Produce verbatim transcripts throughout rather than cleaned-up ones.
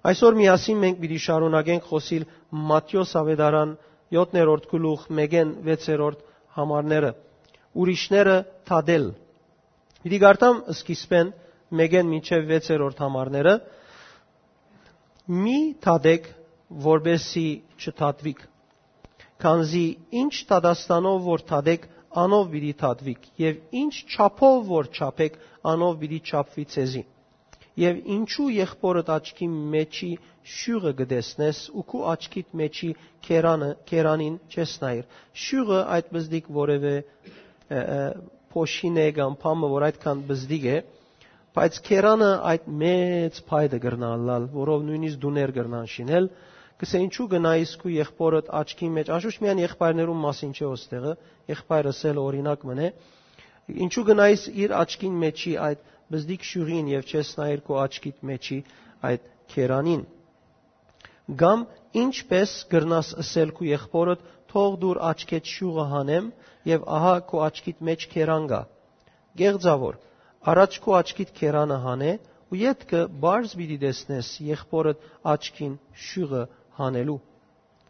Այսօր միասին մենք պիտի շարունակենք խօսիլ Մատթէոս աւետարան յոթերորդ գլուխ մէկէն վեցերորդ համարները։ Ուրիշները դատել։ Պիտի կարդամ սկիզբէն մէկէն մինչեւ վեցերորդ համարները։ «Մի դատեք, որպեսզի չդատուիք, քանզի ինչ դատաստանով որ դատեք, անով պիտի դատուիք, եւ ինչ չափով որ չափեք, անով պիտի չափուի ձեզի։ Եւ ինչու եղբօրդ աչքի մեջի շիւղը կը տեսնես ու քու աչքիդ մեջի քերանը, քերանին չես նայիր»։ Շիւղը այդ պզտիկ որեւէ, ը, ը, փոշին է կամ բան մը, որ այդքան պզտիկ է, բայց քերանը այդ մեծ փայտը կրնա ըլլալ, որով նույնիսկ տուներ կրնան շինել։ Կսե, ինչու գնայիս քու եղբօրդ աչքին մեջ, անշուշտ միայն եղբայրներուն մասին չէ ոստեղը, եղբայրս էլ օրինակ մն է, ինչու գնայիս իր աչքին մեջի այդ պզտիկ շիւղին եւ չես նայիր քու աչքիդ մեջի այդ քերանին։ Կամ ինչպես կրնաս ըսել քու եղբօրդ. «Թող դուր աչքեդ շիւղը հանեմ», եւ ահա քու աչքիդ մեջ քերան կայ։ Կեղծաւոր, առաջ քու աչքիդ քերանը հանէ ու ետքը պարզ պիտի տեսնես եղբօրդ աչքին շիւղը հանելու։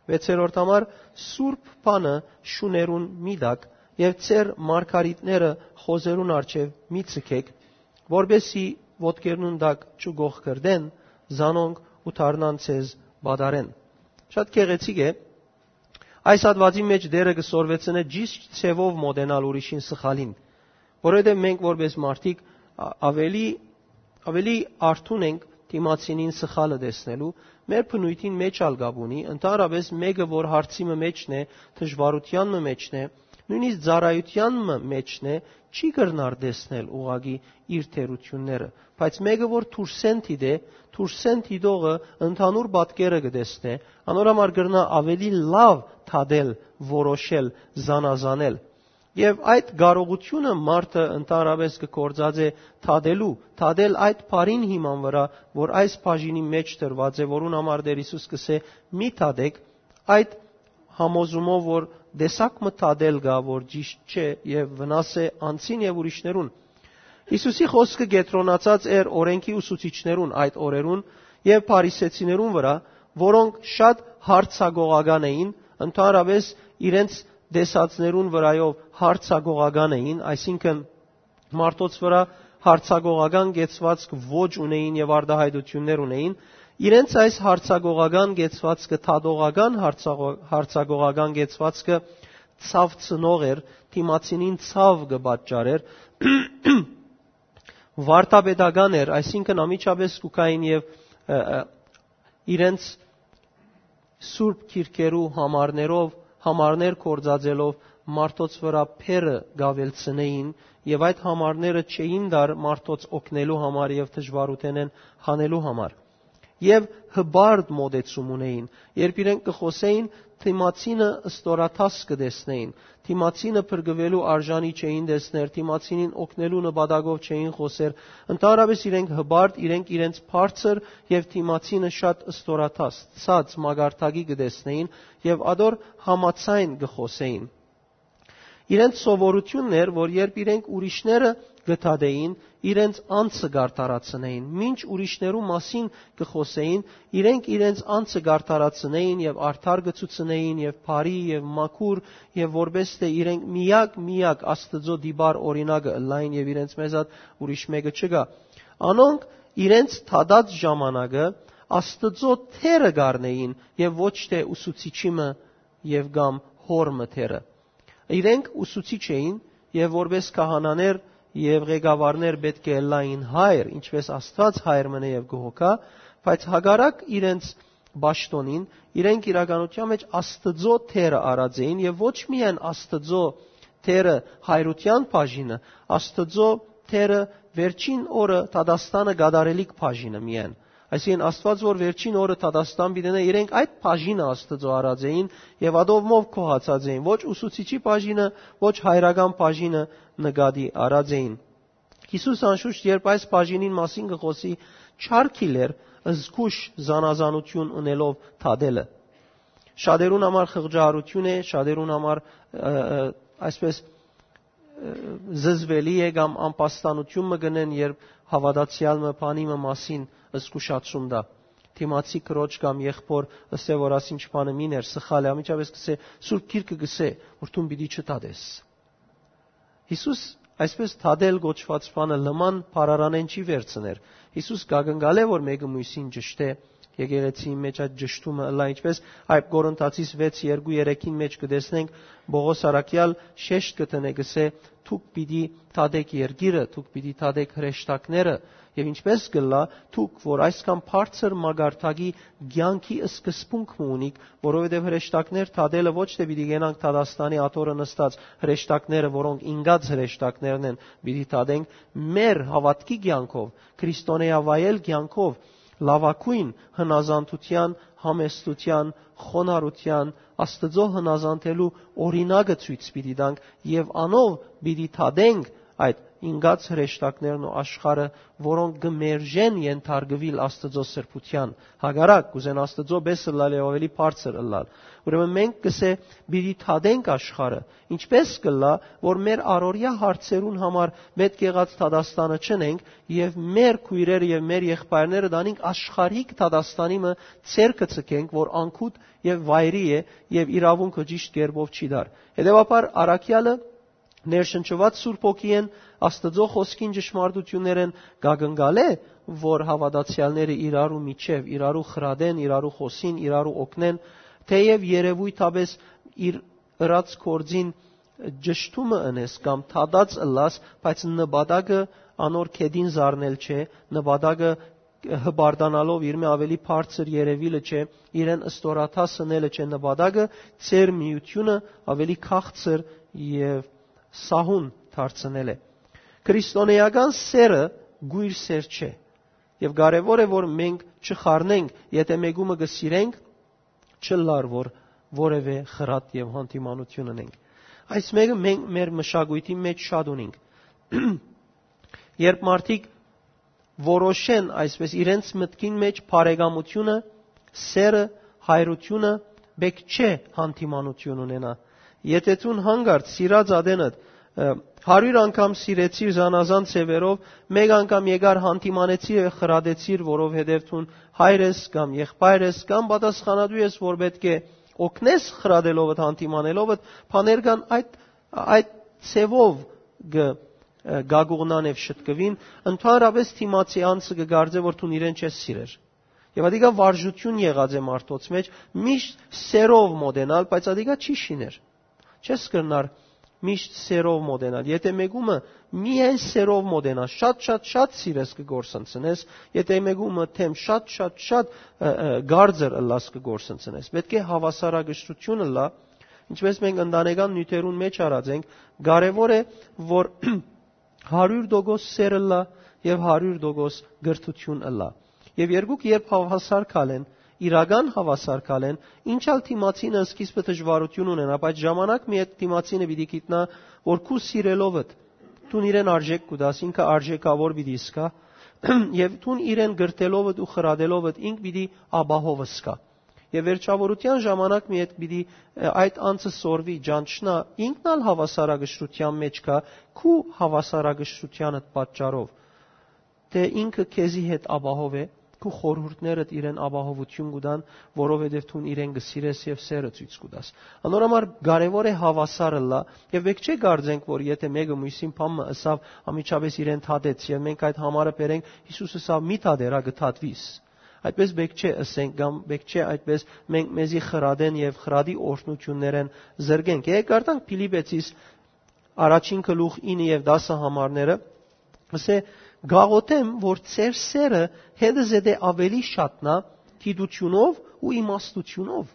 Վեցերորդ համար, սուրբ բանը շուներուն մի տաք եւ ձեր մարգարիտները խոզերուն առջեւ մի ձգեք, որպեսզի ոտքերնուն տակ չկոխկրտեն, զանոնք ու դառնան ձեզ պատառեն։ Շատ գեղեցիկ է։ Այս հատուածին մեջ Տէրը կը սորվեցնէ ճիշդ ձեւով մոտենալ ուրիշին սխալին, որովհետեւ մենք որպես մարդիկ ա-, ավելի, ավելի արթուն ենք դիմացինին սխալը տեսնելու, մեր բնույթին մեջ ալ կապ ունի, ընդհանրապես մէկը, որ հարցի մը մեջն է, դժվարութեան մը մեջն է, նույնիսկ ծառայութեան մը մեջն է, չի կրնար տեսնել ուղղակի իր թերությունները, բայց մէկը, որ դուրսէն դիտէ, դուրսէն դիտողը ընդհանուր պատկերը կը տեսնէ, անոր համար կրնայ ավելի լաւ դատել, որոշել, զանազանել։ Եւ այդ կարողությունը մարդը ընդհանրապես կը գործածէ դատելու, դատել այդ բառին հիման վրայ, որ այս բաժինի մեջ դրուած է, որուն համար Տէր Յիսուս կ'ըսէ. «Մի դատեք», այդ համոզումով, որ տեսակ մը դատել կայ, որ ճիշդ չէ եւ վնաս է անձին եւ ուրիշներուն։ Յիսուսի խօսքը կեդրոնացած էր օրէնքի ուսուցիչներուն այդ օրերուն եւ փարիսեցիներուն վրայ, որոնք շատ յարձակողական էին, ընդհանրապես իրենց տեսածներուն վրայով յարձակողական էին, այսինքն՝ մարդոց վրայ յարձակողական կեցուածք ոչ ունէին եւ արտայայտութիւններ ունէին, իրենց այս յարձակողական կեցուածքը, դատողական յարձակո-, յարձակողական կեցուածքը ցաւ ծնող էր, դիմացինին ցաւ կը պատճառէր, վարդապետական էր, այսինքն՝ անմիջապես կու գային եւ, ը, ը, իրենց սուրբ գիրքերու համարներով, համարներ գործածելով մարդոց վրայ փերը կավելցնեին, եւ այդ համարները չէին տար մարդոց օգնելու համար եւ դժուարութենէն հանելու համար։ Եւ հպարտ մոտեցում ունեին, երբ իրենք կը խօսէին, դիմացինը ստորադաս կը տեսնեին, դիմացինը փրկուելու արժանի չէին տեսներ, դիմացինին օգնելու նպատակով չէին խօսեր, ընդհանրապես իրենք հպարտ, իրենք իրենց բարձր եւ դիմացինը շատ ստորադաս, ցած մակարդակի կը տեսնեին եւ ատոր համաձայն կը խօսէին։ Իրենց սովորությունն էր, որ երբ իրենք ուրիշները կը դատէին, իրենց անձը կ'արդարացնէին, մինչ ուրիշներու մասին կը խօսէին, իրենք իրենց անձը կ'արդարացնէին եւ արդար կը ցուցնէին եւ բարի եւ մաքուր, եւ որպէս թէ իրենք միակ, միակ Աստուծոյ տիպար օրինակը ըլլային եւ իրենց մեզատ ուրիշ մէկը չկայ։ Անոնք իրենց դատած ժամանակը Աստուծոյ դերը կ'առնէին եւ ոչ թէ ուսուցիչի մը եւ կամ հօր մը դերը։ Իրենք ուսուցիչ էին եւ որպէս քահանաներ եւ ղեկավարներ պէտք է ըլլային հայր, ինչպէս Աստուած հայր մնե եւ կը հոգայ, բայց հակառակ իրենց պաշտոնին, իրենք իրականության մեջ Աստուծոյ դերը առած էին եւ ոչ միայն Աստուծոյ դերը հայրութեան բաժինը, Աստուծոյ դերը վերջին օրը դատաստանը կատարելիք բաժինը միայն։ Այսինքն՝ Աստուած որ վերջին օրը դատաստան պիտի ընէ, իրենք այդ բաժինը Աստուծոյ առած էին եւ ատովմով գոհացած էին, ոչ ուսուցիչի բաժինը, ոչ հայրական բաժինը նկատի առած էին։ Յիսուս անշուշտ, երբ այս բաժինին մասին կը խօսի, չարգիլ էր զգուշ զանազանություն ընելով դատելը։ Շատերուն համար խղճահարություն է, շատերուն համար, ը, ը, այսպես, ը, զզվելի է կամ անպաստանություն մը կ'ընեն, երբ հաւատացեալ մը բանի մը մասին զգուշացում տայ։ դիմացի քրոջ կամ եղբոր ըսե որ ասինչ բանը մին էր, սխալ է, անմիջապէս կսե, Սուրբ Գիրքը կսե, որ դուն պիտի չտատես։ Յիսուս այսպես թադել կոչուած բանը լման բառարանէն չի վերցներ։ Յիսուս կակնկալէ որ մէկը մոյսին ճշտէ, եկեղեցիի մեջ այդ ճշտումը ըլլայ, ինչպես այդ Կորինթացիս վեց երկու երեքին մեջ կը տեսնենք, Պողոս առաքեալ շեշտ կը դնէ, կսե, «Դուք պիտի թադէք երկիրը, դուք պիտի թադէք հրեշտակները», եւ ինչպես կլլայ, դուք որ այսքան բարձր մագարտակի կեանքի սկզբունք մը ունիք, որովհետեւ հրեշտակներ թադելը ոչ թէ պիտի գնանք Թադաստանի աթոռը նստած հրեշտակները, որոնք ինկած հրեշտակներն են, պիտի թադենք, մեր հաւատքի կեանքով, քրիստոնեայ վայել կեանքով, լաւագոյն հնազանդութեան, համեստութեան, խոնարհութեան, Աստուծոյ հնազանդելու օրինակը ցոյց պիտի տանք եւ անով պիտի թադենք այդ ինկած հրեշտակներն ու աշխարհը, որոնք կը մերժեն ենթարկուիլ Աստուծոյ սրբութեան։ Հակառակ, կ'ուզեն Աստուծոյ պէս ըլլալ եւ աւելի բարձր ըլլալ։ Ուրեմն մենք կսե պիտի թադենք աշխարհը, ինչպես կլլայ, որ մեր առօրեայ հարցերուն համար պէտք եղած դատաստանը չընենք եւ մեր քոյրերը եւ մեր եղբայրները տանինք աշխարհիկ դատաստանի մը, ձեռքը ցկենք, որ անկութ եւ վայրի է եւ իրաւունքը ճիշտ կերպով չի դար։ Հետեւաբար առաքեալը ներշնչուած Սուրբ Հոգիէն, Աստուծոյ խօսքին ճշմարտութիւններէն կակնկալէ, որ հաւատացեալները իրարու միջեւ, իրարու խրատեն, իրարու խօսին, իրարու օգնեն, թէեւ երեւոյթապէս իր ըրած գործին ճշտումը ընես կամ թադած ըլլաս, բայց նպատակը անոր կետին զարնել չէ, նպատակը հպարտանալով իրմէ աւելի բարձր երեւիլը չէ, իրեն ստորադաս ընելը չէ, նպատակը ձեր միութիւնը աւելի քաղցր եւ սահուն դարձնել է։ Քրիստոնեական սերը գոյր սեր չէ, եւ կարեւոր է որ մենք չխառնենք, եթէ մեկումը կը սիրենք, չլար որ որեւէ խրատ եւ հանդիմանութիւն ունենք։ Այս մեկը մենք մեր մշակոյթի մեջ շատ ունենք։ Երբ մարդիկ որոշեն այսպես իրենց մտքին մեջ բարեկամությունը, սերը, հայրությունը, պէտք չէ հանդիմանութիւն ունենայ։ Եթէ դուն հանկարծ սիրած ատենդ, ը, հարիւր անգամ սիրեցիր զանազան ձեւերով, մէկ անգամ եկար հանդիմանեցիր եւ խրատեցիր, որովհետեւ դուն հայր ես կամ եղբայր ես կամ պատասխանատու ես, որ պէտք է օգնես խրատելովդ, հանդիմանելովդ, բաներ կան այդ, այդ ձևով կը, ը, գագուղնան եւ շտկուին, ընդհանրապես դիմացի անձը կը կարծէ որ դուն իրեն չես սիրեր։ Եւ ատիկա վարժութիւն եղած է մարդոց մեջ, միշտ սերով մոտենալ, բայց ատիկա չի շիներ։ Չես կրնար միշտ սերով մոտենալ։ Եթէ մեկումը միայն սերով մոտենա, շատ, շատ, շատ սիրես կը գործընծնես, եթէ մեկումը թեմ շատ, շատ, շատ, ը, ը, գարձր ըլլաս կը գործընծնես։ Պէտք է հաւասարակշռութիւն ըլլայ, ինչպես մենք ընտանեկան նիւթերուն մեջ արած ենք, կարեւոր է որ հարիւր տոկոս սեր ըլլայ եւ հարիւր տոկոս կրթութիւն ըլլայ։ Եւ երկուք երբ հաւասար քալեն, իրական հաւասար քալեն, ինչ ալ դիմացինը սկիզբը դժուարութիւն ունենայ, բայց ժամանակ մը յետ դիմացինը պիտի գիտնայ որ քու սիրելովդ դուն իրեն արժէք կու տաս, ինքը արժէքաւոր պիտի զգայ, եւ դուն իրեն կրթելովդ ու խրատելովդ ինք պիտի ապահով զգայ։ Եւ վերջավորութեան ժամանակ մը յետ պիտի, ը, այդ անձը սորվի, ճանչնայ, ինքն ալ հաւասարակշռութեան մեջ կայ, քու հաւասարակշռութեանդ պատճառով, թէ ինքը քեզի հետ ապահով է, քու խորհուրդներդ իրեն ապահովութիւն կու տան, որովհետեւ դուն իրեն կը սիրես եւ սերը ցոյց կու տաս։ Անոր համար կարեւոր է հաւասար ըլլայ, եւ պէտք չէ կարծենք որ եթէ մէկը մոյսին բան մը ըսաւ, անմիջապէս իրեն թատեց, եւ մենք այդ համարը բերենք, Յիսուս ըսաւ. «Մի թատեր, ա, կը թատուիս»։ Այդպես պէտք չէ ըսենք կամ պէտք չէ այդպես մենք մեզի խրատեն եւ խրատի օրհնութիւններէն զրկենք։ Եկեք կարդանք Փիլիպեցիս առաջին գլուխ ինը եւ տասը համարները, ասէ. «Գաղութեմ որ ձեր սերը հետը զետե աւելի շատնայ գիտութիւնով ու իմաստութիւնով»։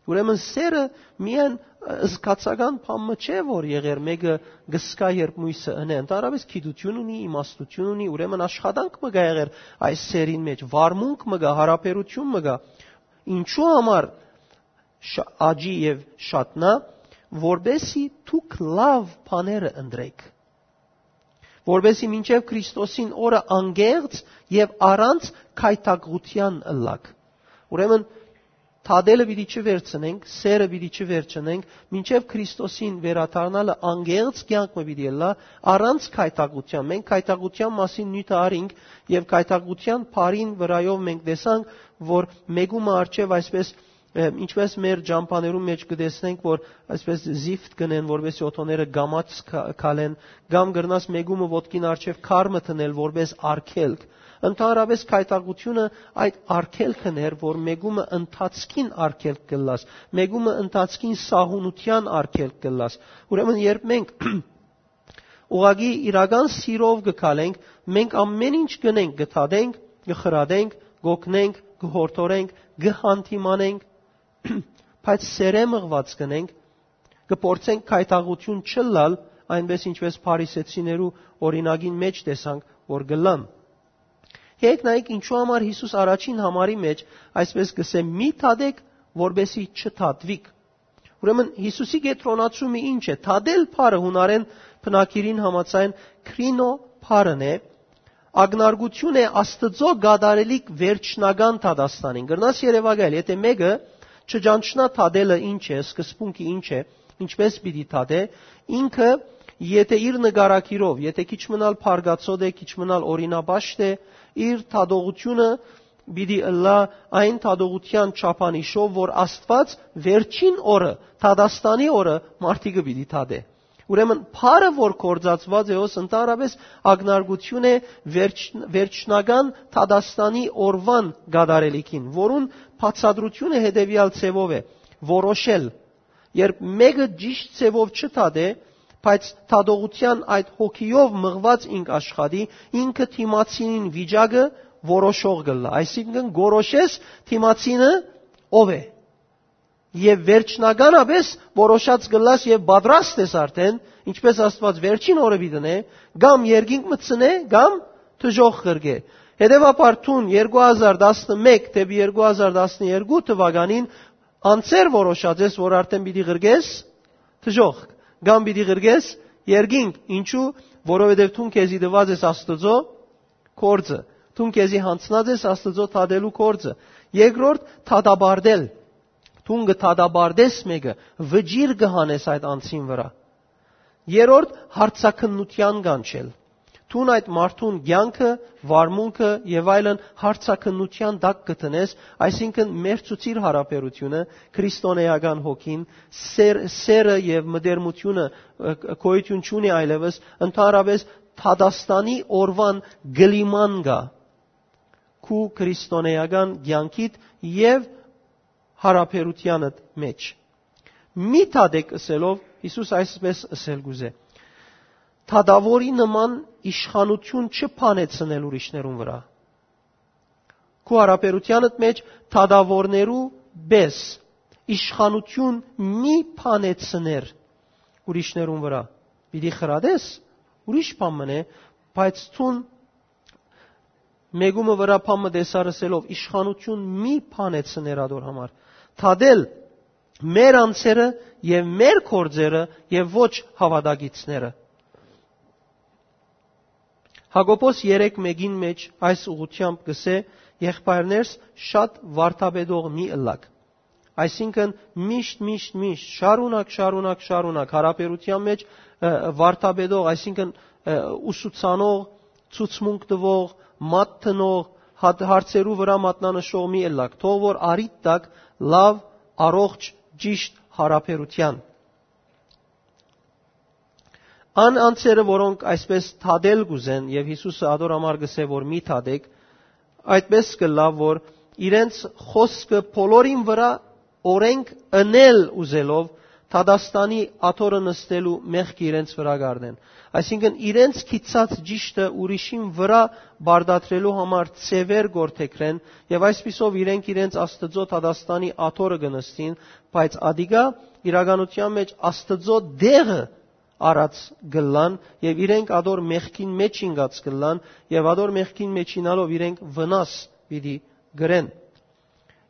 Ուրեմն սերը միայն, ը, զգացական բան մը չէ որ եղեր մէկը կսկա երբ մոյսը ընէ, ընդհանրապես գիտութիւն ունի, իմաստութիւն ունի, ուրեմն աշխատանք մը կա եղեր այս սերին մեջ, վարմունք մը կա, հարաբերութիւն մը կա։ Ինչու համար շ-, աճի եւ շատնայ, որպեսի դուք լաւ բաները ընտրեք, որպեսի մինչեւ Քրիստոսին օրը անկեղծ եւ առանց գայթակղութեան ըլլաք։ Ուրեմն Թատելը պիտի չվերցնենք, սերը պիտի չվերցնենք, մինչեւ Քրիստոսին վերադառնալը անկեղծ կեանք մը պիտի ըլլայ, առանց գայթակղութեան։ Մենք գայթակղութեան մասին նիւթը առինք, եւ գայթակղութեան բառին վրայով մենք տեսանք, որ մեկումը առջեւ այսպես, ը, ինչպես մեր ճամբաներուն մէջ կը տեսնենք, որ այսպես զիֆտ կ'ընեն, որպեսզի օթոները կամաց քա-, քալեն, կամ կրնաս մեկումը ոտքին առջեւ քար մը դնել, որպես արգելք։ Ընդհանրապէս գայթակղութիւնը այդ արգելքն էր, որ մեկումը ընթացքին արգելք կ'ըլլաս, մեկումը ընթացքին սահունութեան արգելք կ'ըլլաս։ Ուրեմն երբ մենք ուղղակի իրական սիրով կը քալենք, մենք ամեն ինչ կ'ընենք, կը թատենք, կը խրատենք, կ'օգնենք, կը յորդորենք, կը յանդիմանենք, բայց սերէ մղուած կ'ընենք, կը փորձենք գայթակղութիւն չըլլալ, այնպես ինչպես փարիսեցիներու օրինակին մէջ տեսանք, որ կ'ըլլան։ Հեգ նայեք, ինչու համար Յիսուս առաջին համարի մէջ այսպես կ'ըսէ. «Մի թատեք, որպեսզի չթատուիք»։ Ուրեմն Յիսուսի կեդրոնացումը ինչ է։ Թատել բառը յունարէն բնագիրին համաձայն քրինո բառն է, ակնարկություն է Աստուծոյ կատարելիք վերջնական դատաստանին։ Կրնաս երեւակայել, եթէ մէկը չճանչնայ թատելը ինչ է, սկզբունքը ինչ է, ինչպես պիտի թատէ, ինքը, եթէ իր նկարագիրով, եթէ քիչ մնալ փարգացոտ է, քիչ մնալ օրինապաշտ է, իր թատողությունը պիտի ըլլայ այն թատողութեան չափանիշով, որ Աստուած վերջին օրը, դատաստանի օրը մարդիկը պիտի թատէ։ Ուրեմն բառը, որ գործածուած է, հոս ընդհանրապէս ակնարկություն է վերջ-, վերջնական դատաստանի օրուան կատարելիքին, որուն բացատրությունը հետեւեալ ձեւով է. որոշել։ Երբ մէկը ճիշտ ձեւով չթատէ, բայց թատողութեան այդ հոգիով մղուած ինք աշխատի, ինքը դիմացինին վիճակը որոշող կ'ըլլայ։ Այսինքն, կորոշես դիմացինը ով է։ Եւ վերջնականապէս որոշած կ'ըլլաս եւ պատրաստ ես արդէն, ինչպես Աստուած վերջին օրը պիտի դնէ, կամ երկինք մտցնէ, կամ դժոխք ղրկէ։ Հետեւաբար դուն երկու հազար տասնմէկ դէպի երկու հազար տասներկու թուականին անցեր որոշած ես, որ արդէն պիտի ղրկես դժոխք, կամ պիտի ղրկես երկինք։ Ինչու՞, որովհետեւ դուն քեզի տուած ես Աստուծոյ գործը, դուն քեզի յանձնած ես Աստուծոյ թատելու գործը։ Երկրորդ, թատապարտել։ Դուն կը թատապարտես մէկը, վճիռ կը հանես այդ անձին վրայ։ Երրորդ, հարցաքննութեան կանչել։ Դուն այդ մարդուն կեանքը, վարմունքը եւ այլն հարցաքննութեան տակ կը դնես, այսինքն՝ մերցուցիր յարաբերությունը, քրիստոնէական հոգին, սեր-, սերը եւ մտերմությունը, ը, գոյութիւն չունի այլեւս, ընդհանրապէս դատաստանի օրուան կլիման կայ քու քրիստոնէական կեանքիդ եւ յարաբերութեանդ մէջ։ «Մի թատեք» ըսելով, Յիսուս այսպես ըսել կ'ուզէ. «Թատաւորի նման իշխանութիւն չփանեցնել ուրիշներուն վրայ»։ Քու յարաբերութեանդ մէջ թատաւորներու պէս իշխանութիւն մի փանեցներ ուրիշներուն վրայ։ Պիտի խրատես, ուրիշ բան մըն է, բայց դուն մեկումը վրայ բան մը տեսար ըսելով, իշխանութիւն մի փանեցներ ատոր համար։ Թատել մեր անձերը եւ մեր գործերը եւ ոչ հաւատակիցները։ Հակոբոս երեք մէկին մէջ այս ուղղությամբ կ'ըսէ. «Եղբայրներս, շատ վարդապետող մի ըլլաք»։ Այսինքն՝ միշտ, միշտ, միշտ, շարունակ, շարունակ, շարունակ յարաբերութեան մէջ, ը, վարդապետող, այսինքն՝ ը, ուսուցանող, ցուցմունք տուող, մատ դնող, հատ-, հարցերու վրայ մատնանշող մի ըլլաք, թող որ առիթ տաք լաւ, առողջ, ճիշտ յարաբերութեան։ Ան անձերը, որոնք այսպես թատել կ'ուզեն, եւ Յիսուսը ատոր համար կ'ըսէ, որ «Մի թատեք», այդպես կ'ըլլայ, որ իրենց խօսքը բոլորին վրայ օրենք ընել ուզելով, դատաստանի աթոռը նստելու մեղքը իրենց վրայ կ'առնեն։ Այսինքն՝ իրենց գիծած ճիշդը ուրիշին վրայ պարտադրելու համար ձեւեր գործեգրեն, եւ այսպիսով իրենք իրենց Աստուծոյ դատաստանի աթոռը կը նստին, բայց ատիկա իրականութեան մէջ Աստուծոյ դեղը առած կ'ըլլան, եւ իրենք ատոր մեղքին մէջ ինկած կ'ըլլան, եւ ատոր մեղքին մէջ ինալով իրենք վնաս պիտի կրեն։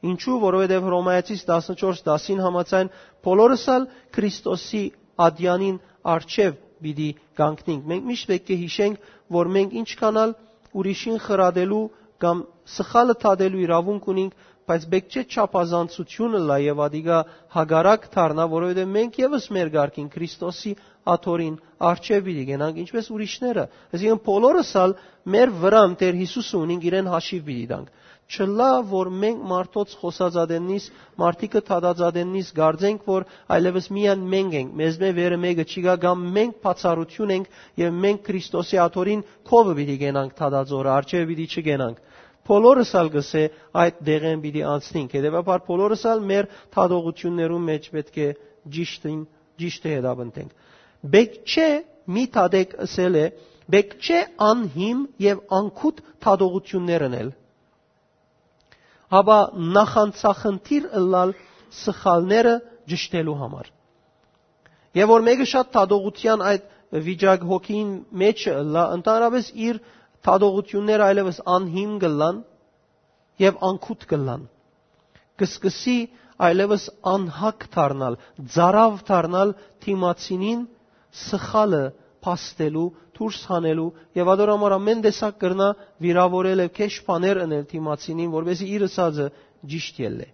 Ինչու՞, որովհետեւ Հռոմայեցիս տասնչորս տասին համաձայն՝ բոլորս ալ Քրիստոսի ատեանին առջեւ պիտի կանգնենք։ Մենք միշտ պէտք է յիշենք, որ մենք ինչքան ալ ուրիշին խրատելու կամ Սխալը դատելու իրաւունք ունինք, բայց պէտք չէ չափազանցութիւն ըլլայ եւ ատիկա հակառակ դառնայ, որովհետեւ մենք եւս մեր կարգին Քրիստոսի աթոռին առջեւ պիտի գնանք, ինչպես ուրիշները։ Այսինքն՝ բոլորս ալ մեր վրան Տէր Յիսուսը ունինք, իրեն հաշիւ պիտի տանք։ Չըլլայ որ մենք մարդոց խօսած ատեննիս, մարդիկը դատած ատեննիս, կարծենք որ այլեւս միայն մենք ենք, մեզմէ վերը մէկը չի գայ, կամ մենք բացառութիւն ենք եւ մենք Քրիստոսի աթոռին քովը պիտի գնանք դատածորը, առջեւը պիտի չգնանք։ Բոլորս ալ կ'ըսէ՝ այդ դեղէն պիտի անցնենք։ Հետեւաբար՝ բոլորս ալ մեր դատողութիւններուն մէջ պէտք է ճիշտին, ճիշտը հետապնդենք։ Պէտք չէ մի դատեք, ըսել է, պէտք չէ անհիմ եւ անկութ դատողութիւններ ընել, հապա նախանձախնդիր ըլլալ սխալները ճշտելու համար։ Եւ որ մէկը շատ դատողութեան այդ վիճակ հոգին մէջը ըլլայ, ընդհանրապէս իր դատողութիւնները այլեւս անհիմ կ'ըլլան եւ անկութ կ'ըլլան։ Կ'սկսի այլեւս անհակ դառնալ, ծարաւ դառնալ դիմացինին սխալը փաստելու, դուրս հանելու, եւ ատոր համար ամէն տեսակ կրնայ վիրաւորել եւ քեշ բաներ ընել դիմացինին, որպեսզի իր ըսածը ճիշտ ելլէ։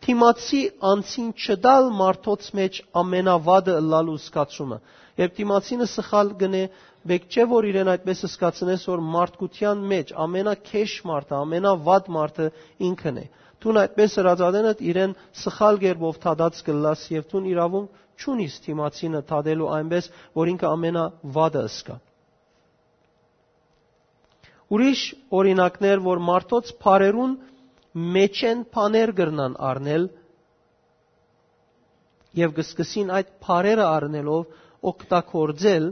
Դիմացի անձին չտալ մարդոց մէջ ամենավատը ըլլալու զգացումը։ Երբ դիմացինը սխալ կ'ընէ, պէտք չէ որ իրեն այդպես զգացնես, որ մարդկութեան մէջ ամենաքեշ մարդը, ամենավատ մարդը ինքն է։ Դուն այդպես ըրած ատենդ իրեն սխալ կերպով դատած կ'ըլլաս եւ դուն իրաւունք չունիս դիմացինը դատելու այնպես, որ ինքը ամենավատը ըսկայ։ Ուրիշ օրինակներ, որ մարդոց բառերուն մէջէն բաներ կրնան առնել եւ կ'սկսին այդ բառերը առնելով օգտագործել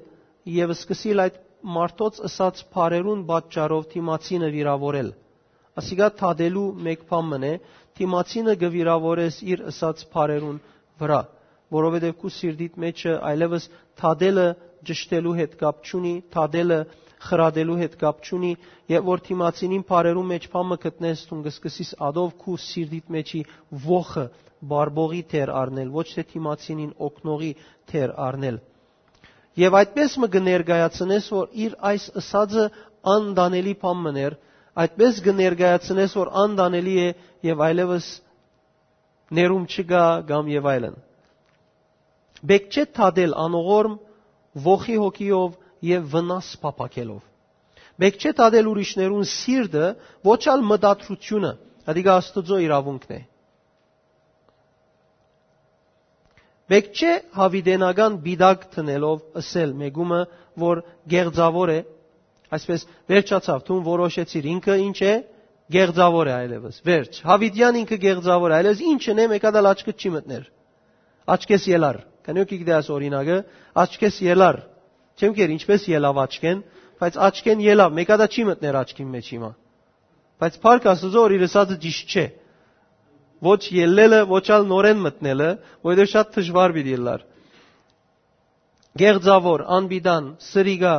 եւ սկսիլ այդ մարդոց ըսած բառերուն պատճառով դիմացինը վիրաւորել։ Ասիկա դատելու մէկ բան մըն է, դիմացինը կը վիրաւորես իր ըսած բառերուն վրայ, որովհետեւ քու սիրտիդ մէջը այլեւս դատելը ճշտելու հետ կապ չունի, դատելը խրատելու հետ կապ չունի, եւ որ դիմացինին բառերուն մէջ բան մը գտնես, դուն կը սկսես ատով քու սիրտիդ մէջի ոխը բարբողի դեր առնել, ոչ թէ դիմացինին օգնողի դեր առնել։ Եւ այդպես մը կը ներկայացնես, որ իր այս ըսածը անտանելի բան մըն էր, այդպես կը ներկայացնես, որ անտանելի է եւ այլեւս ներում չկայ կամ եւ այլն։ Պէտք չէ դատել անողորմ, ոխի հոգիով եւ վնաս փափաքելով։ Պէտք չէ դատել ուրիշներուն սիրտը, ոչ ալ մտադրությունը, ատիկա Աստուծոյ իրաւունքն է։ Պէտք չէ յաւիտենական պիտակ դնելով ըսել մէկումը, որ գեղձաւոր է, այսպես վերջացաւ, դուն որոշեցիր, ինքը ինչ է, գեղձաւոր է այլեւս, վերջ, յաւիտեան ինքը գեղձաւոր է, այլեւս ինչ ընեմ, մէկա դալ աչքդ չի մտներ, աչքես ելար, քանի որ գիտես օրինակը, աչքես ելար, չեմ կեր ինչպես ելավ աչքեն, բայց աչքեն ելավ, մէկա դա չի մտներ աչքին մեջ հիմա, բայց փառք Աստուծոյ որ իր ըսածը ճիշտ չէ, ոչ ելլելը, ոչ ալ նորեն մտնելը, որովհետեւ շատ դժուար պիտի ելլար։ Գեղձաւոր, անպիտան, սրիկա,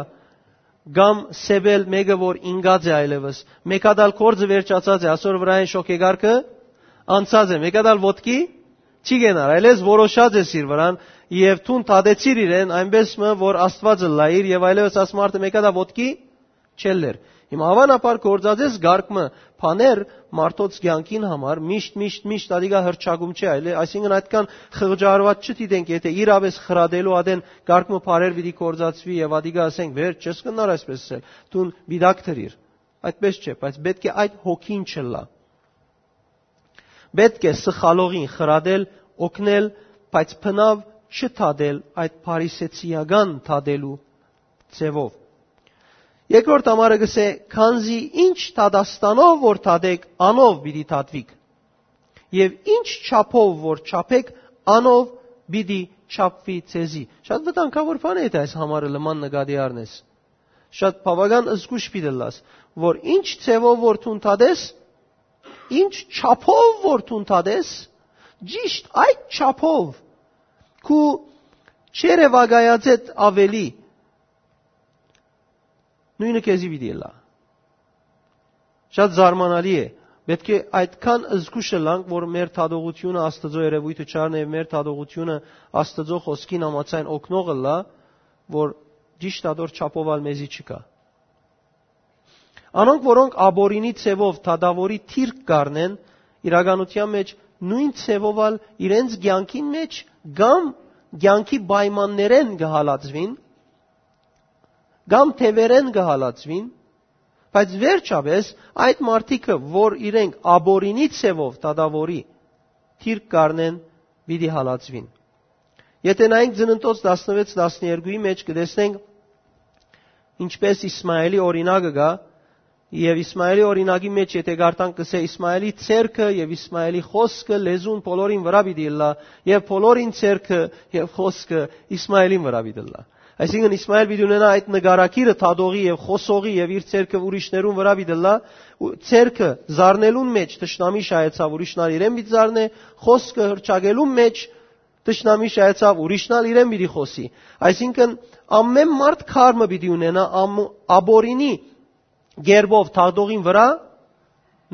կամ սեպել մէկը որ ինկած է այլեւս, մէկա դալ կորձը վերջացած է, ասոր վրայեն շոքեգարքը անցած է, մէկա դալ ոտքի չի գենար, այլեւս որոշած ես իր վրան, եւ դուն դատեցիր իրեն այնպես մը որ Աստուածը լայիր, եւ այլեւս աս մարդը մէկա դա ոտքի չելլեր։ Հիմա, հաւանաբար, գործածես գարգ մը բաներ մարդոց կեանքին համար, միշտ, միշտ, միշտ ատիկա հրճակում չէ, այլ, այսինքն, այդքան խղճարված չդիտենք, եթե իրապէս խրատելու ատեն գարգ մը բառեր պիտի գործածուի եւ ատիկա, ասենք, վեր չես կնար այսպես ասել, դուն պիտակ դրիր։ Այդպես չէ, բայց պէտք է այդ հոգին չըլլայ։ Պէտք է սխալողին խրատել, օգնել, բայց բնաւ չդատել այդ փարիսեցիական դատելու ձևով։ Երկրորդ համարը կ'ըսէ. «Քանզի ինչ դատաստանով որ դատեք, անով պիտի դատուիք, եւ ինչ չափով որ չափեք, անով պիտի չափուի ձեզի»։ Շատ վտանգաւոր բան է, եթե այս համարը լման նկատի առնես։ Շատ բաւական զգուշ պիտի ըլլաս, որ ինչ ձևով որ դուն դատես, ինչ չափով որ դուն դատես, ճիշտ այդ չափով քու չերեւակայածէդ աւելի նոյնը քեզի պիտի ըլլայ։ Շատ զարմանալի է։ Պէտք է այդքան զգուշ ըլլանք, որ մեր դատողությունը Աստուծոյ երեւոյթը չառնէ եւ մեր դատողությունը Աստուծոյ խօսքին համաձայն օգնող ըլլայ, որ ճիշտ ատոր չափով ալ մեզի չկայ։ Անոնք, որոնք ապօրինի ձեւով դատաւորի դիրք կ'առնեն, իրականութեան մէջ նոյն ձեւով ալ իրենց կեանքին մէջ կամ կեանքի պայմաններէն կը հալածուին, կամ թեւերէն կը հալածուին, բայց վերջապէս այդ մարդիկը, որ իրենք ապօրինի ձևով դատաւորի դիրք կ'առնեն, պիտի հալածուին։ Եթէ նայենք Ծննդոց տասնեւեթ տասներկուի մէջ, կը տեսնենք ինչպէս Իսմայելի օրինակը կայ, եւ Իսմայելի օրինակի մէջ, եթէ կարդանք, կ'ըսէ. «Իսմայելի ձեռքը եւ Իսմայելի խօսքը լեզուն բոլորին վրայ պիտի ըլլայ, եւ բոլորին ձեռքը եւ խօսքը Իսմայելին վրայ պիտի ըլլայ»։ Այսինքն՝ Իսմայել պիտի ունենայ այդ նկարագիրը դատողի եւ խօսողի, եւ իր ձեռքը ուրիշներուն վրայ պիտի ըլլայ, ու ձեռքը զարնելուն մէջ թշնամի շահեցաւ, ուրիշն ալ իրեն պիտի զարնէ, խօսքը հռչակելուն մէջ թշնամի շահեցաւ, ուրիշն ալ իրեն պիտի խօսի։ Այսինքն՝ ամէն մարդ քար մը պիտի ունենայ ամ-, ապօրինի կերպով դատողին վրայ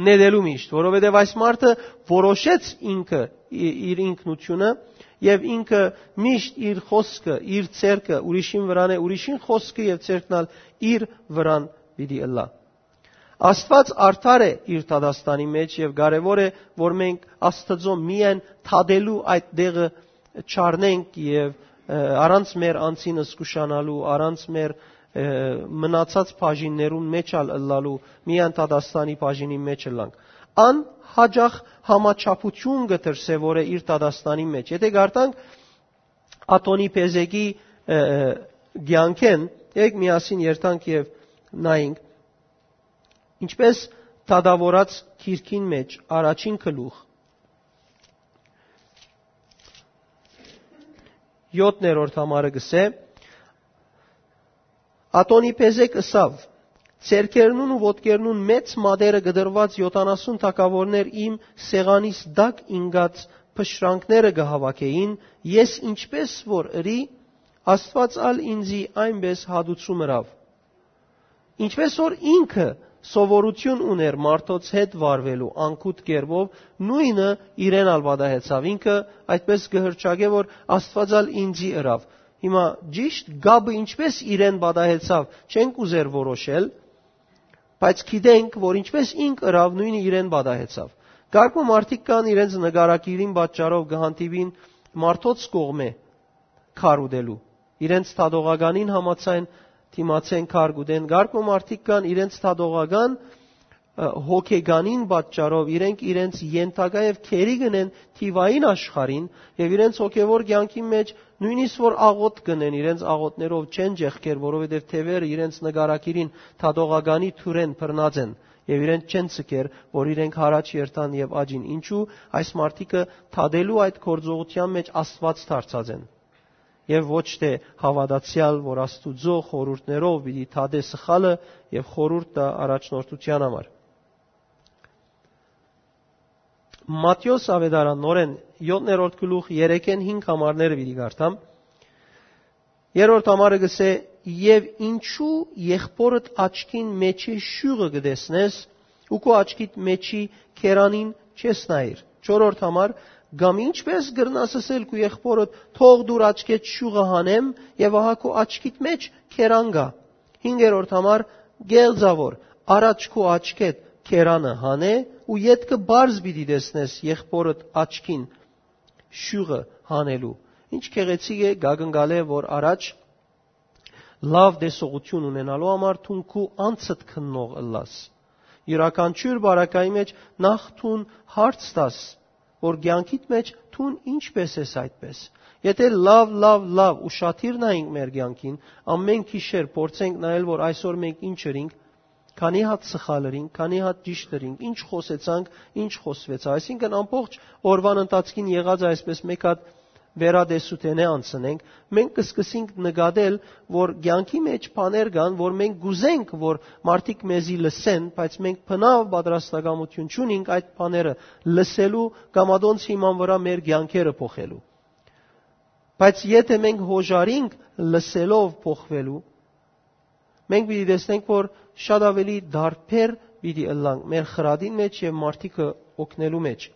նետելու միշտ, որովհետեւ այս մարդը որոշեց ինքը ի-, իր ինքնությունը, եւ ինքը միշտ իր խօսքը, իր ձեռքը ուրիշին վրան է, ուրիշին խօսքը եւ ձեռքն ալ իր վրան պիտի ըլլայ։ Աստուած արդար է իր դատաստանի մէջ, եւ կարեւոր է, որ մենք Աստուծոյ միայն դատելու այդ տեղը չառնենք եւ, ը, առանց մեր անձին զգուշանալու, առանց մեր, ը, մնացած բաժիններուն մէջ ալ ըլլալու, միայն դատաստանի բաժինի մէջ ըլլանք։ Ան յաճախ համաչափութիւն կը դրսեւորէ իր դատաստանի մէջ։ Եթէ կարդանք Ատոնի Փեզեկի, ը, ը, կեանքէն, եկեք միասին երթանք եւ նայենք, ինչպէս դատաւորած գիրքին մէջ առաջին գլուխ, յոթերորդ համարը կ'ըսէ. «Ատոնի Փեզեկ ըսաւ. "Ձեռքերնուն ու ոտքերնուն մեծ մատերը կտրուած յոթանասուն թագաւորներ իմ սեղանիս տակ ինկած փշրանքները կը հաւաքէին, ես ինչպէս որ ըրի, Աստուած ալ ինծի այնպէս հատուցում ըրաւ"։ Ինչպէս որ ինքը սովորութիւն ունէր մարդոց հետ վարուելու անգութ կերպով, նոյնը իրեն ալ պատահեցաւ։ Ինքը այդպէս կը հռչակէ, որ Աստուած ալ ինծի ըրաւ։ Հիմա ճիշդ կապը ինչպէս իրեն պատահեցաւ, չենք ուզեր որոշել, բայց գիտենք, որ ինչպէս ինք ըրաւ, նոյնը իրեն պատահեցաւ։ Կարգ մը մարդիկ կան, իրենց նկարագիրին պատճառով կը հանդիպին մարդոց կողմէ քար ուտելու, իրենց դատողականին համաձայն դիմացեն քար կ'ուտեն։ Կարգ մը մարդիկ կան, իրենց դատողական, ը, հոգեկանին պատճառով իրենք իրենց ենթակայ եւ գերի կ'ընեն թիվային աշխարհին, եւ իրենց հոգեվոր կեանքի մէջ նոյնիսկ որ աղօթք կ'ընեն, իրենց աղօթքներով չեն ճեղքեր, որովհետեւ թեւերը իրենց նկարագիրին դատողականի թուրեն բռնած են, եւ իրենց չեն ցկեր, որ իրենք յառաջ երթան եւ աճին։ Ինչու՞։ Այս մարդիկը դատելու այդ գործողութեան մէջ Աստուած դարձած են, եւ ոչ թէ հաւատացեալ, որ Աստուծոյ խորհուրդներով պիտի դատէ սխալը եւ խորհուրդ տայ առաջնորդութեան համար։ Մատթէոս Աւետարան, նորէն, յոթերորդ գլուխ, երեքէն հինգ համարները պիտի կարդամ։ Երրորդ համարը կ'ըսէ. «Եւ ինչու եղբորդ աչքին մէջի շիւղը կը տեսնես, ու քու աչքիդ մէջի քերանին չես նայիր»։ Չորրորդ համար. «Կամ ինչպէս կրնաս ըսել քու եղբորդ. "Թող դուր աչքէդ շիւղը հանեմ", եւ ահա քու աչքիդ մէջ քերան կայ»։ Հինգերորդ համար. «Կեղծաւոր, առաջ քու աչքէդ քերանը հանէ ու ետքը պարզ պիտի տեսնես եղբորդ աչքին շիւղը հանելու»։ Ինչ գեղեցիկ է, կ'ակնկալէ, որ առաջ լաւ տեսողութիւն ունենալու համար դուն քու անձդ քննող ըլլաս։ Իւրաքանչիւր բարակայի մէջ նախ դուն հարց տաս, որ կեանքիդ մէջ դուն ինչպէս ես այդպէս։ Եթէ լաւ, լաւ, լաւ ուշադիր նայենք մեր կեանքին, ամէն գիշեր փորձենք նայել, որ այսօր մենք ինչ ըրինք, քանի հատ սխալ ըրինք, քանի հատ ճիշդ ըրինք, ինչ խօսեցանք, ինչ խօսուեցաւ։ Այսինքն՝ ամբողջ օրուան ընթացքին եղած այսպէս մեկ հատ վերատեսութենէ անցնենք, մենք կը սկսենք նկատել, որ կեանքի մէջ բաներ կան, որ մենք կ'ուզենք, որ մարդիկ մեզի լսեն, բայց մենք բնաւ պատրաստակամութիւն չունենք այդ բաները լսելու կամ ատոնց հիման վրայ մեր կեանքերը փոխելու։ Բայց եթէ մենք յօժարինք լսելով փոխվելու, մենք պիտի տեսնենք, որ շատ աւելի տարբեր պիտի ըլլանք մեր խրատին մէջ եւ մարդիկը օգնելու մէջ։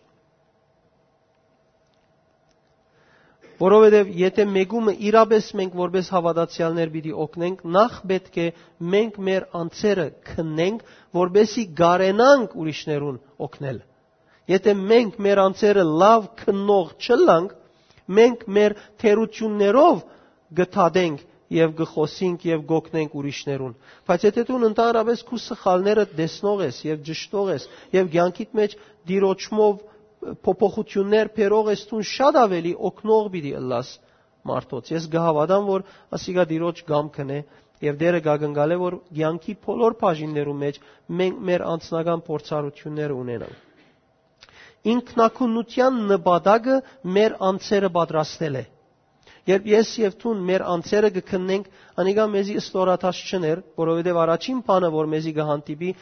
Որովհետեւ եթէ մեկումը իրապէս մենք որպէս հաւատացեալներ պիտի օգնենք, նախ պէտք է մենք մեր անձերը քննենք, որպէսզի կարենանք ուրիշներուն օգնել։ Եթէ մենք մեր անձերը լաւ քննող չըլլանք, մենք մեր թերություններով կը դատենք եւ կը խօսինք եւ կ'օգնենք ուրիշներուն։ Բայց եթէ դուն ընդհանրապէս քու սխալներդ տեսնող ես եւ ճշդող ես եւ կեանքիդ մէջ Տիրոջմով փոփոխություններ բերող ես, դուն շատ աւելի օգնող պիտի ըլլաս մարդոց։ Ես կը հաւատամ, որ ասիկա Տիրոջ կամքն է եւ Տէրը կ'ակնկալէ, որ կեանքի բոլոր բաժիններու մէջ մենք մեր անձնական փորձառութիւնները ունենանք։ Ինքնակունութեան նպատակը մեր անձերը պատրաստել է։ Երբ ես եւ դուն մեր անձերը կը քննենք, անիկա մեզի ստորադաս չըներ, որովհետեւ առաջին բանը, որ մեզի կը հանդիպի,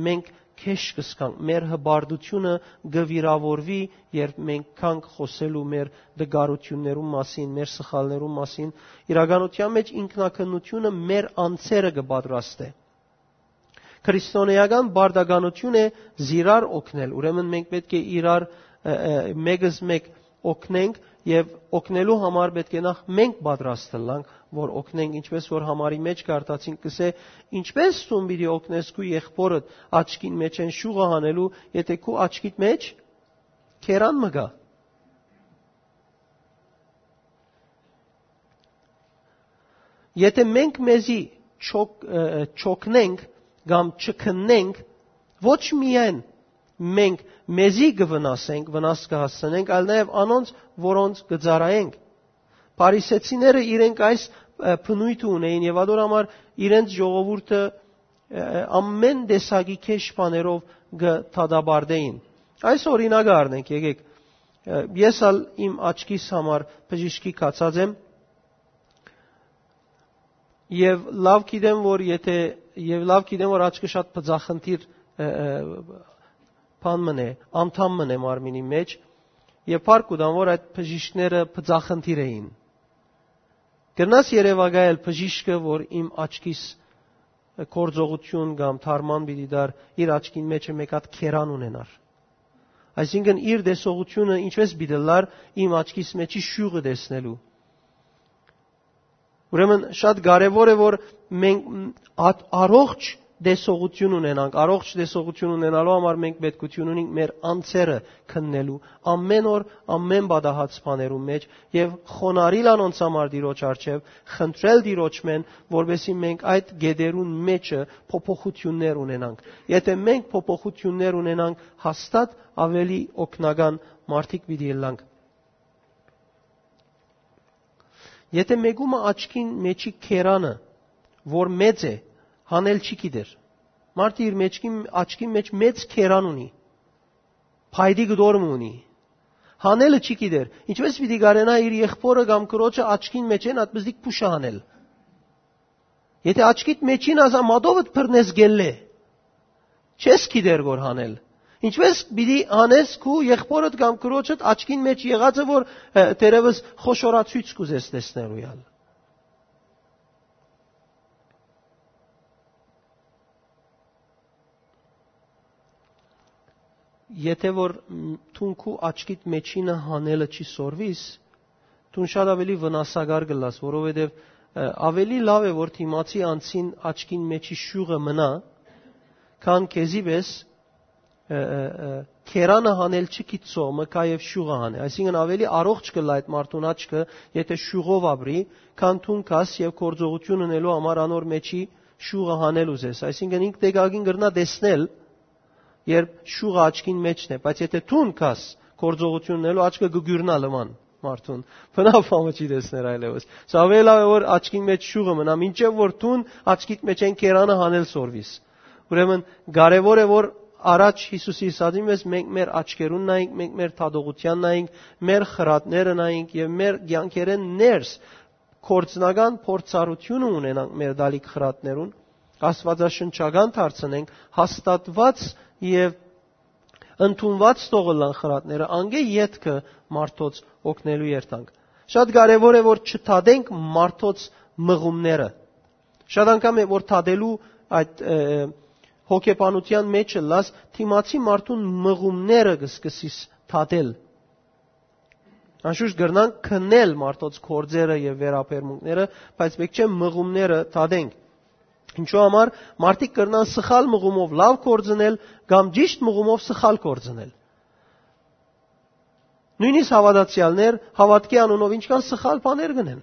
մենք քեշ կ'ըսկանք, մեր հպարտությունը կը վիրաւորուի, երբ մենք գանք խօսելու մեր դգարութիւններուն մասին, մեր սխալներուն մասին։ Իրականութեան մէջ ինքնակնությունը մեր անձերը կը պատրաստէ։ Քրիստոնէական պարտականութիւն է զիրար օգնել։ Ուրեմն մենք պէտք է իրար, ը, ը, մեկս մեկ օգնենք եւ օգնելու համար պէտք է նախ մենք պատրաստ ըլլանք, որ օգնենք, ինչպես որ համարի մէջ կարդացինք, կսէ, ինչպես դուն պիտի օգնես քու եղբորդ աչքին մէջէն շուղը հանելու, եթէ քու աչքիդ մէջ քերան մը կայ։ Եթէ մենք մեզի չօգ-, ը, չօգնենք կամ չքննենք, ոչ միայն մենք մեզի կը վնասենք, վնաս կը հասցնենք, այլ նաեւ անոնց, որոնց կը ծառայենք։ Փարիսեցիները իրենք այս, ը, բնոյթը ունէին եւ ատոր համար իրենց ժողովուրդը, ը, ամեն տեսակի քեշ բաներով կը դատապարտէին։ Այս օրինակը առնենք, եկեք։ Ը, ես ալ իմ աչքիս համար բժիշկի գացած եմ եւ լաւ գիտեմ, որ եթէ, եւ լաւ գիտեմ, որ աչքը շատ բծախնդիր, ը, ը, բան մն է, անդամ մն է մարմինի մէջ, եւ փառք կու տամ, որ այդ բժիշկները բծախնդիր էին։ Կրնաս երեւակայել բժիշկը, որ իմ աչքիս գործողութիւն կամ թարման պիտի տար, իր աչքին մէջը մէկ հատ քերան ունենար։ Այսինքն՝ իր տեսողութիւնը ինչպես պիտի լար իմ աչքիս մէջի շիւղը տեսնելու։ Ուրեմն շատ կարեւոր է, որ մենք ատ-, առողջ տեսողութիւն ունենանք, առողջ տեսողութիւն ունենալու համար մենք պետքութիւն ունենք մեր անձերը քննելու ամեն օր, ամեն պատահած բաներու մէջ եւ խոնարհիլ անոնց համար Տիրոջ առջեւ, խնդրել Տիրոջմէն, որպեսզի մենք այդ գետերուն մէջը փոփոխութիւններ ունենանք։ Եթէ մենք փոփոխութիւններ ունենանք, հաստատ աւելի օգնական մարդիկ պիտի ըլլանք։ Եթէ մեկումը աչքին մէջի քերանը, որ մեծ է, հանել չի գիտեր։ Մարդը իր մեջքին, աչքին մէջ մեծ քերան ունի, փայտի կտոր մը ունի, հանելը չի գիտեր։ Ինչպես պիտի կարենայ իր եղբորը կամ քրոջը աչքին մէջէն ատմզդիկ փուշը հանել։ Եթէ աչքիդ մէջին ազա մատովդ բռնես գելլէ, չես գիտեր որ հանել։ Ինչպես պիտի հանես քու եղբորդ կամ քրոջդ աչքին մէջ եղածը, որ, ը, դերևս խոշորացոյց կուզես տեսնելու ալ։ Եթէ որ, մ, դուն քու աչքիդ մէջինը հանելը չի սորվիս, դուն շատ աւելի վնասակար կ'ըլլաս, որովհետեւ, ը, աւելի լաւ է որ դիմացի անձին աչքին մէջի շիւղը մնայ, քան քեզի պէս, ը, ը, ը, քերանը հանել չգիտցող մը գայ եւ շիւղը հանէ։ Այսինքն՝ աւելի առողջ կ'ըլլայ այդ մարդուն աչքը, եթէ շիւղով ապրի, քան դուն գաս եւ գործողութիւն ընելու համար անոր մէջի շիւղը հանել ուզես։ Այսինքն՝ ինք տեքակին կրնայ տեսնել, երբ շիւղը աչքին մէջն է, բայց եթէ դուն գաս գործողութիւն ընելու, աչքը կը գիւռնայ լման մարդուն։ Բնաւ համը չի տեսներ այլեւս։ Սա աւելի լաւ է որ աչքին մէջ շիւղը մնայ, մինչեւ որ դուն աչքիդ մէջէն քերանը հանել սորվիս։ Ուրեմն կարեւոր է որ առաջ Յիսուսի ըսածին պէս մենք մեր աչքերուն նայենք, մենք մեր դատողութեան նայենք, մեր խրատները նայենք եւ մեր կեանքերէն ներս գործնական փորձառութիւնը ունենանք մեր տալիք խրատներուն, աստուածաշնչական դարձնենք, հաստատուած եւ ընդունուած թող ըլլան խրատները, անկէ ետքը մարդոց օգնելու երթանք։ Շատ կարեւոր է որ չդատենք մարդոց մղումները։ Շատ անգամ է որ դատելու այդ, ը, հոգեբանութեան մէջ ըլլաս, դիմացի մարդուն մղումները կը սկսիս դատել։ Անշուշտ կրնանք քննել մարդոց գործերը եւ վերաբերմունքները, բայց պէտք չէ մղումները դատենք։ Ինչու համար մարդիկ կրնան սխալ մղումով լաւ գործնել կամ ճիշդ մղումով սխալ գործնել։ Նոյնիսկ հաւատացեալներ հաւատքի անունով ինչքան սխալ բաներ կ'ընեն։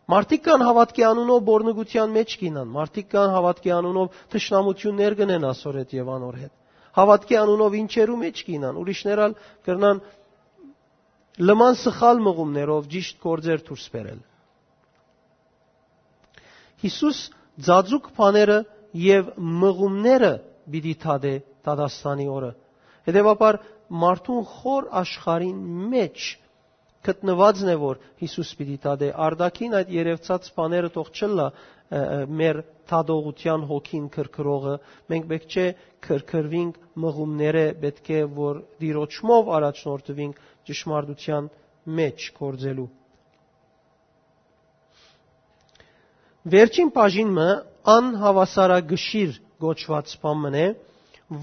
Մարդիկ կան հաւատքի անունով բորնգութեան մէջ կ'ինան, մարդիկ կան հաւատքի անունով թշնամութիւններ կ'ընեն ասոր հետ եւ անոր հետ։ Հաւատքի անունով ինչերու մէջ կ'ինան, ուրիշներ ալ կրնան լման սխալ մղումներով ճիշդ գործեր դուրս բերել։ Յիսուս ծածուկ բաները եւ մղումները պիտի դատէ դատաստանի օրը։ Հետեւաբար մարդուն խոր աշխարհին մէջ գտնուածն է, որ Յիսուս պիտի դատէ։ Արտաքին այդ երևցած բաները թող չըլլայ, ը, ը, մեր դատողութեան հոգին քրքրողը, մենք պէտք չէ քրքրուինք մղումները, պէտք է որ դիրոջմով առաջնորդուինք ճշմարտութեան մէջ գործելու։ Վերջին բաժին մը անհաւասարակշիռ կոչուած բան մըն է,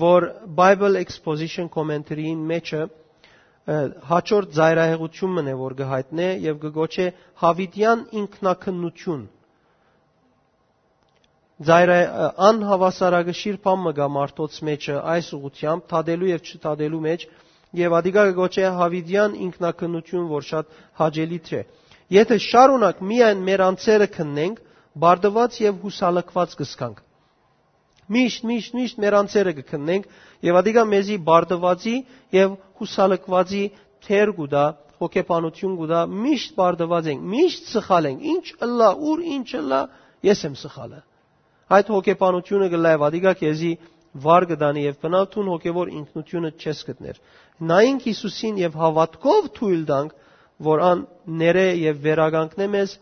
որ Bible Exposition Commentary-ին մէջը, ը, հաջորդ ծայրահեղութիւն մըն է, որ կը յայտնէ եւ կը կոչէ Յաւիտեան ինքնակնություն։ Ծայրայ-, ը, անհաւասարակշիռ բան մը կայ մարդոց մէջը այս ուղղութեամբ, դատելու եւ չդատելու մէջ, եւ ատիկա կը կոչէ Յաւիտեան ինքնակնություն, որ շատ հաճելի չէ։ Եթէ շարունակ միայն մեր անձերը քննենք, բարդուած եւ յուսալքուած կ'ըսքանք։ Միշտ, միշտ, միշտ մեր անձերը կը քննենք, եւ ատիկա մեզի բարդուածի եւ յուսալքուածի թեր կու տայ, հոգեբանութիւն կու տայ, միշտ բարդուած ենք, միշտ սխալ ենք, ինչ ըլլայ, ուր ինչ ըլլայ, ես եմ սխալը։ Այդ հոգեբանութիւնը կ'ըլլայ, ատիկա քեզի վար կը տանի եւ բնաւ դուն հոգեվոր ինքնութիւնը չես գտներ։ Նայենք Յիսուսին եւ հաւատքով թոյլ տանք, որ ան ներէ եւ վերականգնէ մեզ,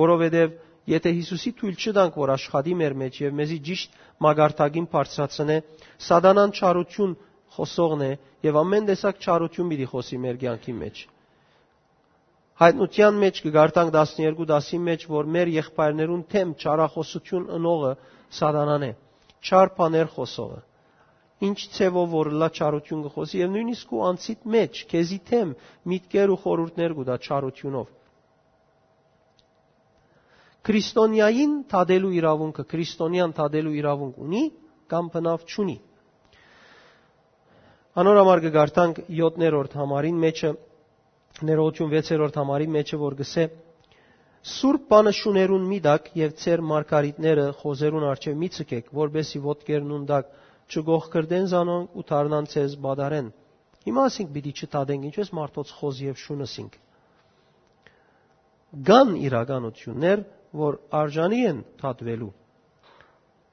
որովհետեւ եթէ Յիսուսի թոյլ չտանք, որ աշխատի մեր մէջ եւ մեզի ճիշտ մակարդակին բարձրացնէ, սատանան չարութիւն խօսողն է եւ ամէն տեսակ չարութիւն պիտի խօսի մեր կեանքի մէջ։ Յայտնութեան մէջ կը կարդանք տասներկու տասին մէջ, որ մեր եղբայրներուն դէմ չարախօսութիւն ընողը սատանան է, չար բաներ խօսողը։ Ինչ ձեւով որ ըլլայ չարութիւն կը խօսի, եւ նոյնիսկ քու անձիդ մէջ, քեզի դէմ, միտքեր ու խորհուրդներ կու տայ չարութիւնով։ Քրիստոնեային դատելու իրաւունքը, քրիստոնեան դատելու իրաւունք ունի կամ բնաւ չունի։ Անոր համար կը կարդանք յոթերորդ համարին մէջը, ներողություն, վեցերորդ համարին մէջը, որ կ'ըսէ. «Սուրբ բանը շուներուն մի տաք եւ ձեր մարգարիտները խոզերուն առջեւ մի ցկէք, որպէսզի ոտքերնուն տակ չկոխկրտեն զանոնք ու դառնան ձեզ պատառեն»։ Հիմա ասենք պիտի չդատենք, ինչպես մարդոց խոզ եւ շուն ըսինք։ Կան իրականություններ, որ արժանի են դատուելու,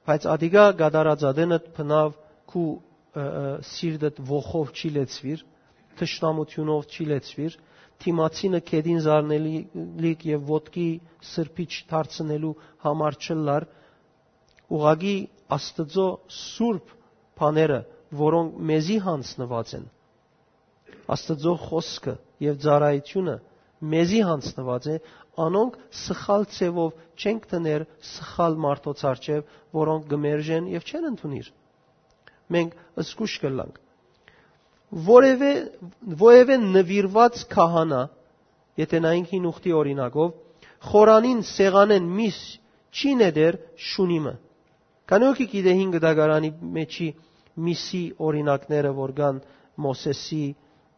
բայց ատիկա կատարած ատենդ բնաւ քու, ը, ը, սիրտդ ոխով չի լեցուիր, թշնամութիւնով չի լեցուիր, դիմացինը գետին զարնելիք եւ ոտքի սրբիչ դարձնելու համար չըլլար, ուղղակի Աստուծոյ սուրբ բաները, որոնք մեզի յանձնուած են, Աստուծոյ խօսքը եւ ծառայութիւնը մեզի յանձնուած է, անոնք սխալ ձեւով չենք դներ սխալ մարդոց առջեւ, որոնք կը մերժեն եւ չեն ընդունիր։ Մենք զգուշ կ'ըլլանք։ Որևէ, որևէ նուիրուած քահանա, եթէ նայենք հին ուխտի օրինակով, խորանին սեղանէն միս չի նետեր շունի մը։ Քանի՞ ոքի գիտէ հին կտակարանի մէջի միսի օրինակները, որ կան Մովսէսի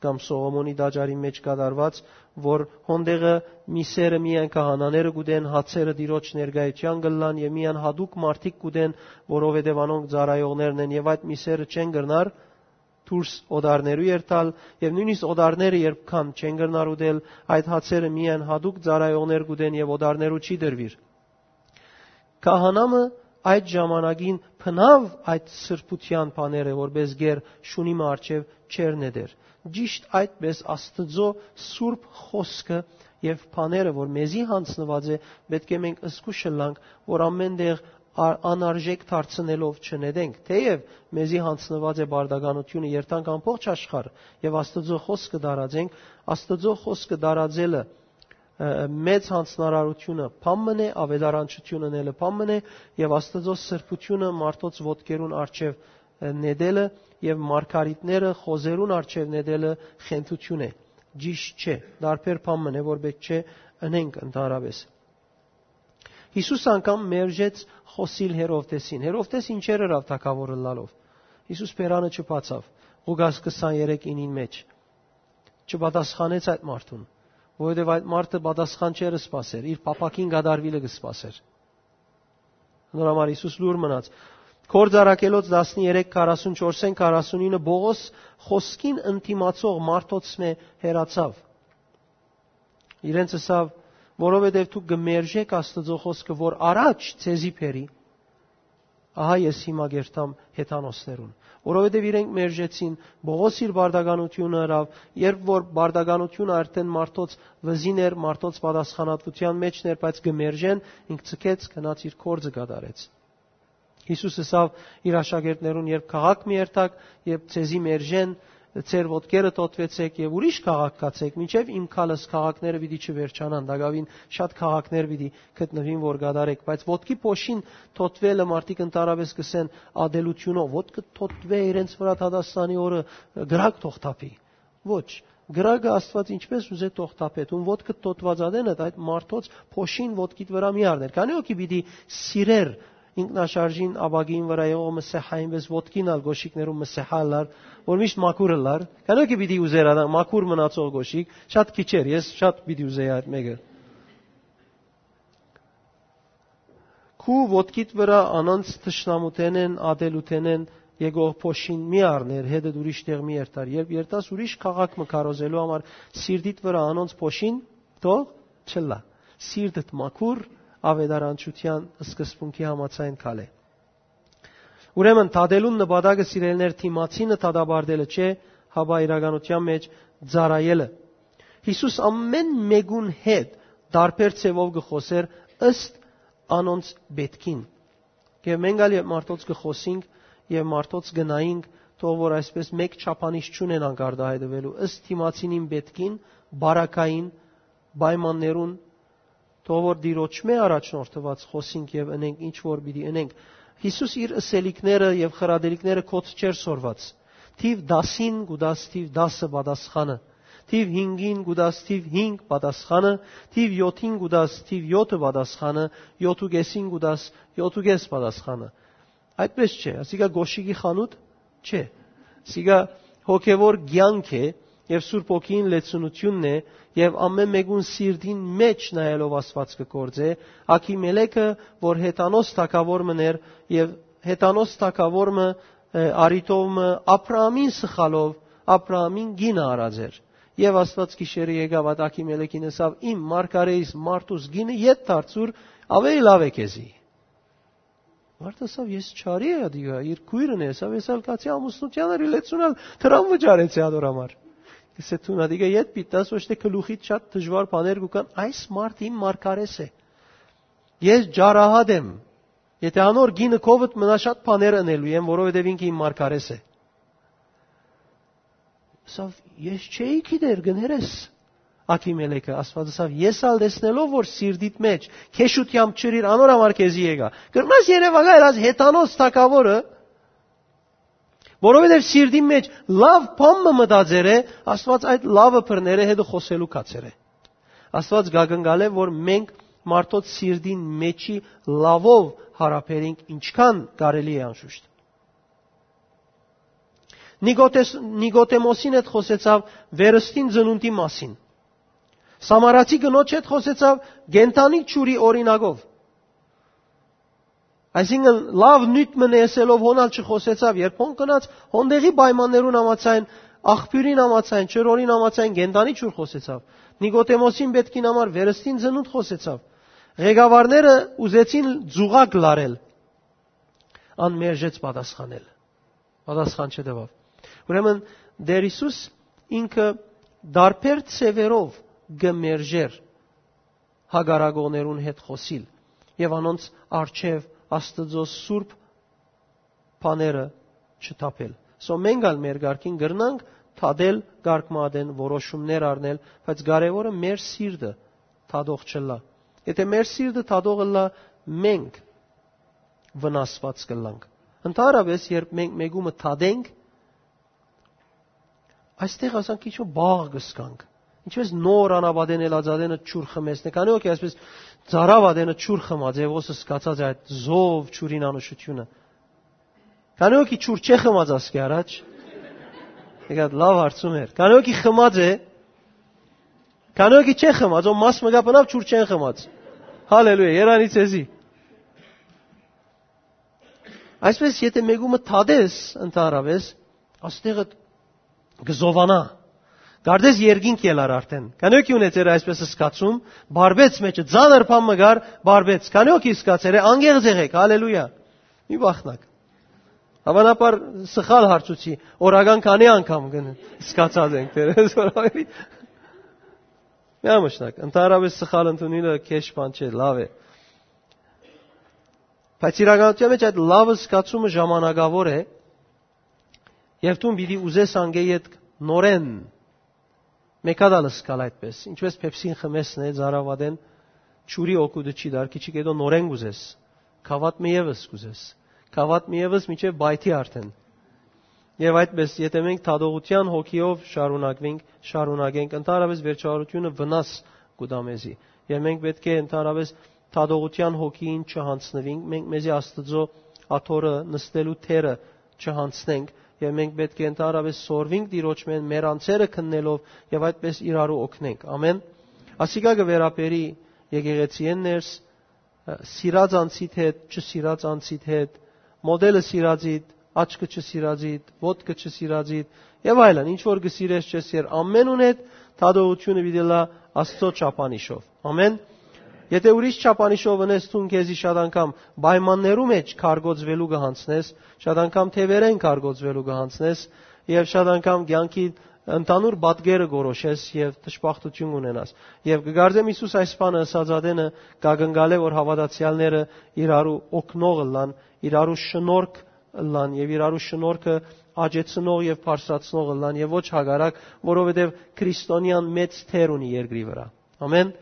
կամ Սողոմոնի տաճարի մէջ կատարուած, որ հոնդեղը միսերը միայն քահանաները կ'ուտեն, հացերը Տիրոջ ներկայութեան կ'ըլլան եւ միայն յատուկ մարդիկ կ'ուտեն, որովհետեւ անոնք ծառայողներն են եւ այդ միսերը չեն կրնար դուրս օտարներու երթալ, եւ նոյնիսկ օտարները երբ կան, չեն կրնար ուտել, այդ հացերը միայն յատուկ ծառայողներ կ'ուտեն եւ օտարներու չի տրուիր։ Քահանամը այդ ժամանակին բնաւ այդ սրբութեան բաները, որպես գեր շունի մը առջեւ չեր նետեր։ Ճիշտ այդպես Աստուծոյ սուրբ խօսքը եւ բաները, որ մեզի յանձնուած է, պէտք է մենք զգուշ ըլլանք, որ ամէն տեղ ա-, անարժեք դարձնելով չնետենք, թէեւ մեզի յանձնուած է պարտականութիւնը երթանք ամբողջ աշխարհ եւ Աստուծոյ խօսքը տարածենք, Աստուծոյ խօսքը տարածելը, ը, մեծ յանձնարարութիւնը բան մըն է, աւետարանչութիւնը ելը բան մըն է, եւ Աստուծոյ սրբութիւնը մարդոց ոտքերուն առջեւ, ը, նետելը եւ մարգարիտները խոզերուն առջեւ նետելը խենթութիւն է։ ճիշդ չէ, տարբեր բան մըն է, որ պէտք չէ ընենք ընդհանրապէս։ Յիսուս անգամ մերժեց խօսիլ Հերովդէսին։ Հերովդէս ինչեր ըրաւ թագաւոր ըլլալով։ Յիսուս բերանը չբացաւ, Ղուկաս քսաներեք ինին մէջ։ Չպատասխանեց այդ մարդուն, որովհետեւ այդ մարդը պատասխան չէր սպասեր, իր փափաքին կատարուիլը կը սպասեր։ Նոր համար Յիսուս լուր մնաց։ Գործ առաքելոց տասներեք քառասունչորսէն քառասունինը Պողոս խօսքին ընդդիմացող մարդոց մէ հեռացաւ։ Իրենց ըսաւ, որովհետեւ դուք կը մերժէք Աստուծոյ խօսքը, որ առաջ ձեզի բերի, ահա ես հիմա կերթամ հեթանոսներուն, որովհետեւ իրենք մերժեցին, Պողոս իր բարդականությունը ըրաւ, երբ որ բարդականությունը արդեն մարդոց վզին էր, մարդոց պատասխանատվութեան մէջն էր, բայց կը մերժեն, ինք ցկեց, գնաց իր գործը կատարեց։ Յիսուս ըսաւ իր աշակերտներուն. «Երբ քաղաք մի երթաք, երբ ձեզի մերժեն, ձեր ոտքերը թօթուեցէք եւ ուրիշ քաղաք գացէք, մինչեւ իմ գալս քաղաքները պիտի չվերջանան, տակաւին շատ քաղաքներ պիտի գտնուին, որ կատարէք»։ Բայց ոտքի փոշին թօթուելը մարդիկ ընդհանրապէս կ'ըսեն ատելութիւնով, ոտքը թօթուէ իրենց վրայ դատաստանի օրը, կրակ թող թափի։ Ոչ, կրակը Աստուած ինչպէս ուզէ թող թափէ, դուն ոտքդ թօթուած ատենդ այդ մարդոց փոշին ոտքիդ վրայ մի առներ։ Քանի՞ հոգի պիտի սիրեր ինքնաշարժին ապակին վրայ եղող մսեհային, պէս ոտքին ալ գոշիկներուն մսեհա ըլլար, որ միշտ մաքուր ըլլար։ Քանի՞ հոգի պիտի ուզեր ադա մաքուր մնացող գոշիկ, շատ քիչ էր, ես շատ պիտի ուզեի այդ մէկը։ Քու ոտքիդ վրայ անոնց թշնամութենէն, ատելութենէն եկող փոշին մի առներ, հետդ ուրիշ տեղ մի երթար։ Երբ երթաս ուրիշ քաղաք մը քարոզելու համար, սիրտիդ վրայ անոնց փոշին թող չըլլայ։ Սիրտդ մաքուր, աւետարանչութեան սկզբունքի համաձայն քալէ։ Ուրեմն, դատելուն նպատակը, սիրելիներ, դիմացինը դատապարտելը չէ, հապա իրականութեան մէջ ծառայելը։ Յիսուս ամէն մէկուն հետ տարբեր ձեւով կը խօսէր ըստ անոնց պէտքին։ Եւ մենք ալ երբ մարդոց կը խօսինք եւ մարդոց կը նայինք, թող որ այսպէս մէկ չափանիշ չունենանք արտահայտուելու, ըստ դիմացինին պէտքին, բարակային պայմաններուն, թող որ Տիրոջմէ առաջնորդուած խօսինք եւ ընենք ինչ որ պիտի ընենք։ Յիսուս իր ըսելիքները եւ խրատելիքները կոչ չէր սորված։ Թիւ տասին կու տաս թիւ տասը պատասխանը, թիվ հինգին կու տաս թիվ հինգ պատասխանը, թիվ յոթին կու տաս թիվ յոթը պատասխանը, յոթ ու կեսին կու տաս յոթ ու կես պատասխանը։ Այդպես չէ, ասիկա գոշիկի խանութ չէ։ Սիկա հոգեվոր կեանք է եւ Սուրբ Հոգին լեցունութիւնն է, եւ ամէն մէկուն սիրտին մէջ նայելով Աստուած կը գործէ, Աքիմելեքը, որ հեթանոս թագաւոր մըն էր, եւ հեթանոս թագաւոր մը, ը, արիտով մը Աբրահամին սխալով, Աբրահամին կինը առած էր։ Եւ Աստուած գիշերը եկաւ այդ Աքիմելեքին, ըսաւ. «Իմ մարգարէիս մարդուս կինը ետ դարձուր, աւելի լաւ է քեզի»։ Մարդը ըսաւ. «Ես չարի ատիկա, իր քոյրն է», ըսաւ. «Ես ալ կացի ամուսնութեան էր, լեցուն ալ դրան վճարեցի ատոր համար»։ Կսե դուն ատիկա ետ պիտի տաս, ոչ թէ գլուխիդ շատ դժուար բաներ կու կան, այս մարդ իմ մարգարէս է։ Ես ջարահատ եմ։ Եթե անոր կինը քովդ մնա, շատ բաներ ընելու եմ, որովհետեւ ինքը իմ մարգարէս է։ Ասաւ. «Ես չէի գիտեր, կներես»։ Աքիմելեքը, Աստուած ըսաւ. «Ես ալ տեսնելով որ սիրտիդ մէջ քեշութեամբ չըրիր, անոր համար քեզի եկայ։ Կրնաս երեւակայել այս հեթանոս թագաւորը, որովհետեւ սիրտին մէջ լաւ բան մը մտածեր է, Աստուած այդ լավը բռներ է, հետը խօսելու կացեր է»։ Աստուած կակնկալէ որ մենք մարդոց սիրտին մէջի լավով հարաբերենք, ինչքան կարելի է անշուշտ։ Նիկոտես-, Նիկոտեմոսին հետ խօսեցաւ վերստին ծնունդի մասին։ Սամարացի կնոջ հետ խօսեցաւ կենդանի ջուրի օրինակով։ Այսինքն, լաւ նիւթ մը ըսելով հոն ալ չխօսեցաւ, երբ հոն գնաց, հոն տեղի պայմաններուն համաձայն, աղբիւրին համաձայն, ջրորին համաձայն կենդանի ջուր խօսեցաւ։ Նիկոտեմոսին պէտքին համար վերստին ծնունդ խօսեցաւ։ Ղեկավարները ուզեցին ծուղակ լարել, ան մերժեց պատասխանել։ Պատասխան չտուաւ։ Ուրեմն, Տէր Յիսուս ինքը տարբեր ձևերով կը մերժէր հակառակողներուն հետ խօսիլ եւ անոնց առջեւ Աստուծոյ սուրբ բաները չթափել։ Սո մենք ալ մեր կարգին կրնանք թատել կարգ մը ատեն, որոշումներ առնել, բայց կարեւորը մեր սիրտը թատող չըլլայ։ Եթե մեր սիրտը թատող ըլլայ, մենք վնասված կըլլանք։ Ընդհանրապես, երբ մենք մեկումը թատենք, այստեղ ասանք քիչ մը բաղ կսկանք։ Ինչպես նոր անապատեն ելած ատենը ջուր խմեցնէ, քանի՞ հոգի այսպես ծարաւ ատենը ջուր խմած է, ոսը սկացած է այդ զով ջուրին անուշությունը։ Քանի՞ հոգի ջուր չէ խմած ասկի առաջ։ Եկած լավ հարցում էր։ Քանի՞ հոգի խմած է, քանի՞ հոգի չէ խմած, ո մաս մը կա բնավ ջուր չեն խմած։ Հալելույա, երանի ձեզի։ Այսպես, եթե մեկումը թադես, ընդհանրապես, աստեղը կը զովանա։ Կարծես երկինք ելար արդեն։ Քանի՞ հոգի ունեցեր այսպես սկացում, բարբեց մեջը, ձանր բան մը գար, բարբեց։ Քանի՞ հոգի սկացեր է, անգեղ ձեղեք, հալելույա։ Մի բախնակ։ Հավանաբար սխալ հարցուցի, օրական քանի՞ անգամ կն սկացած ենք, դերես որ ավելի։ Միամշնակ, ընդհանրապես սխալ ընդունելը քեշ բան չէ, լավ է։ Բայց իրականության մեջ այդ լավը սկացումը ժամանակավոր է, եւ դուն պիտի ուզես անգե ետք նորեն մեկա տալ սկալ այդպես, ինչպես Փեպսին խմեսն է, ծարաւ ատեն ջուրի օգուտը չի դար, քիչի կետո նորեն կուզես, գավաթ մը ևս կուզես, գավաթ մը ևս մինչեւ պայթի արդեն։ Եւ այդպես, եթե մենք դատողության հոգիով շարունակվենք, շարունակենք, ընդհանրապես վերջավորությունը վնաս կու տայ մեզի։ Եւ մենք պէտք է ընդհանրապես դատողության հոգիին չյանձնուենք, մենք մեզի Աստուծոյ աթոռը նստելու թերը չյանձնենք, եւ մենք պէտք է ընդհանրապես սորվենք Տիրոջմէն մեր անձերը քննելով եւ այդպես իրարու օգնենք։ Ամեն։ Ասիկա կը վերաբերի եկեղեցիէն ներս, սիրած անձիդ հետ, չսիրած անձիդ հետ, մոդելը սիրածիդ, աչքը չսիրածիդ, ոտքը չսիրածիդ, եւ այլն, ինչ որ կը սիրես, չես սիրեր, ամենուն հետ դատողությունը պիտի լա Աստծոյ չափանիշով։ Ամեն։ Եթե ուրիշ չափանիշով ընես, դուն քեզի շատ անգամ պայմաններու մեջ կարգոծվելու կը յանձնես, շատ անգամ թեւերեն կարգոծվելու կը յանձնես, եւ շատ անգամ կեանքի ընդհանուր պատկերը կորոշես եւ դժբախտություն կունենաս։ Եւ կը կարծեմ Յիսուս այս բանը ըսած ատենը կակնկալէ, որ հաւատացեալները իրարու օգնող ըլլան, իրարու շնորհք ըլլան եւ իրարու շնորհքը աճեցնող եւ բարձրացնող ըլլան եւ ոչ հակառակ, որովհետեւ քրիստոնեան մեծ թեր ունի երկրի վրա։ Ամեն։